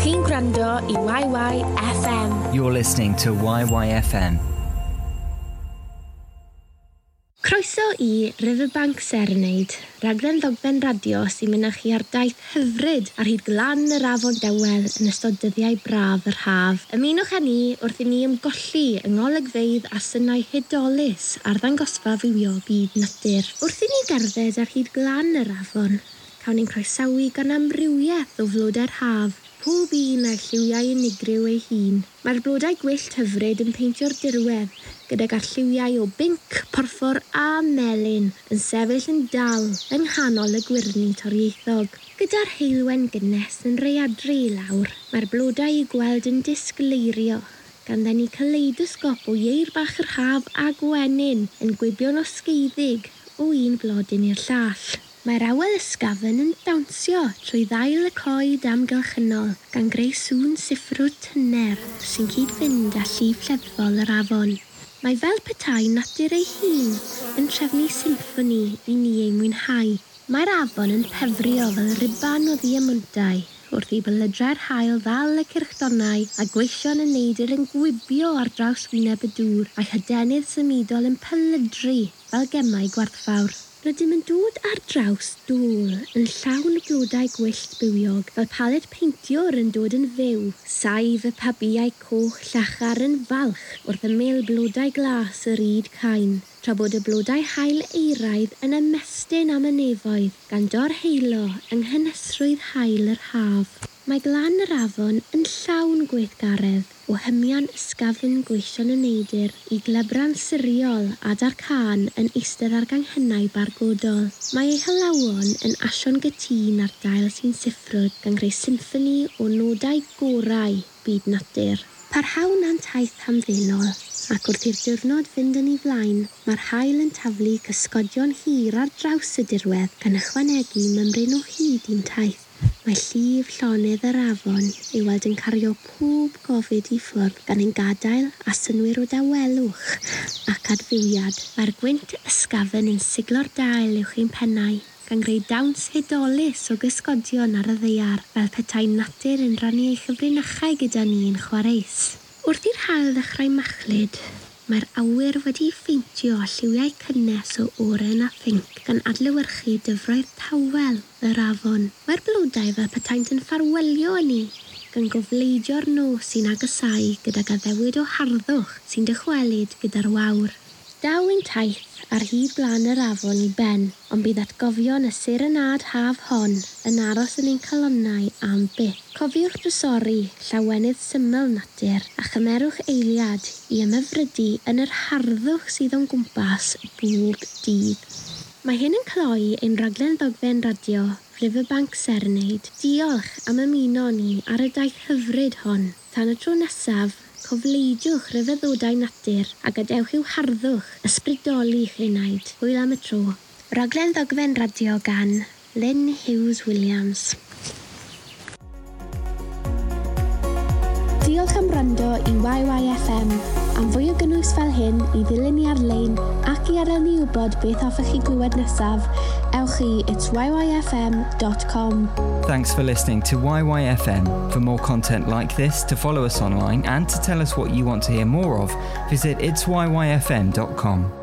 Chi'n gwrando i YYFM. You're listening to YYFM. Croeso i Riverbank Serenade, raglen ddogfen radio sy'n mynd â chi ar daith hyfryd ar hyd glan yr afon dawel yn ystod dyddiau braf yr haf. Ymunwch â ni wrth i ni ymgolli yng ngolygfeydd a synau hudolus ar ddangosfa fywiog byd natur. Wrth i ni gerdded ar hyd glan yr afon, cawn ni'n croesawu gan amrywiaeth o flodau'r haf, pob un â'i lliwiau unigryw ei hun. Mae'r blodau gwyllt hyfryd yn peintio'r dirwedd, gydag arlliwiau o binc, porffor a melyn yn sefyll yn dal yng nghanol y gwyrddni torieithog. Gyda'r heulwen gynnes yn rhaeadru i lawr, mae'r blodau i'w gweld yn disgleirio, gan ddenu kaleidosgop o ieir bach yr haf a gwenyn yn gwibio'n osgeiddig o un blodyn i'r llall. Mae'r awel ysgafn yn dawnsio trwy ddail y coed amgylchynol, gan greu sŵn siffrwd tyner sy'n cyd-fynd â llif lleddfol yr afon. Mae fel petai natur ei hun yn trefnu symffoni i ni ei mwynhau. Mae'r afon yn pefrio fel ruban o ddiemwntau wrth i belydrau'r haul ddal y cyrchdonnau a gweision y neidr yn gwibio ar draws wyneb y dŵr a'i hadenydd symudol yn pelydru fel gemau gwerthfawr. Rydym yn dod ar draws dôl yn llawn blodau gwyllt bywiog, fel paled peintiwr yn dod yn fyw. Saif y pabïau coch llachar yn falch wrth ymyl blodau glas yr ŷd cain, tra bod y blodau haul euraidd yn ymestyn am y nefoedd, gan dorheulo yng nghynhesrwydd haul yr haf. Mae glan yr afon yn llawn gweithgaredd, o hymian ysgafn gweision y neidr i glebran siriol a darcân yn eistedd ar ganghennau bargodol. Mae ei hylawon yn asio'n gytûn ar dail sy'n siffrwd, gan greu symffoni o nodau gorau byd natur. Parhawn â'n taith hamddenol, ac wrth i'r diwrnod fynd yn ei flaen, mae'r haul yn taflu cysgodion hir ar draws y dirwedd, gan ychwanegu mymryn o hyd i'n taith. Mae llif llonydd yr afon i'w weld yn cario pob gofid i ffwrdd, gan ein gadael â synnwyr o dawelwch ac adfywiad. Mae'r gwynt ysgafn yn siglo'r dail uwch ein pennau, gan greu dawns hudolus o gysgodion ar y ddaear, fel petai natur yn rhannu ei chyfrinachau gyda ni yn chwareus. Wrth i'r haul ddechrau machlud, mae'r awyr wedi'i pheintio â lliwiau cynnes o oren a phinc, gan adlewyrchu dyfroedd tawel yr afon. Mae'r blodau fel petaent yn ffarwelio â ni, gan gofleidio'r nos sy'n agosáu gydag addewid o harddwch sy'n dychwelyd gyda'r wawr. Daw ein taith ar hyd glan yr afon i ben, ond bydd atgofion y serenâd haf hon yn aros yn ein calonnau am byth. Cofiwch drysori llawenydd syml natur a chymerwch eiliad i ymhyfrydu yn yr harddwch sydd o'n gwmpas bob dydd. Mae hyn yn cloi ein rhaglen ddogfen radio Riverbank Serenade. Diolch am ymuno ni ar y daith hyfryd hon. Tan y tro nesaf, cofleidiwch ryfeddodau natur a gadewch i'w harddwch ysbrydoli'ch enaid. Hwyl am y tro. Rhaglen ddogfen radio gan Lynn Hughes Williams. Diolch am wrando i YYFM. Am fwy o gynnwys fel hyn i ddilyn ni ar-lein ac i adael ni wybod beth hoffech chi glywed nesaf, ewch i itsyyfm.com. Thanks for listening to YYFM. For more content like this, to follow us online and to tell us what you want to hear more of, visit itsyyfm.com.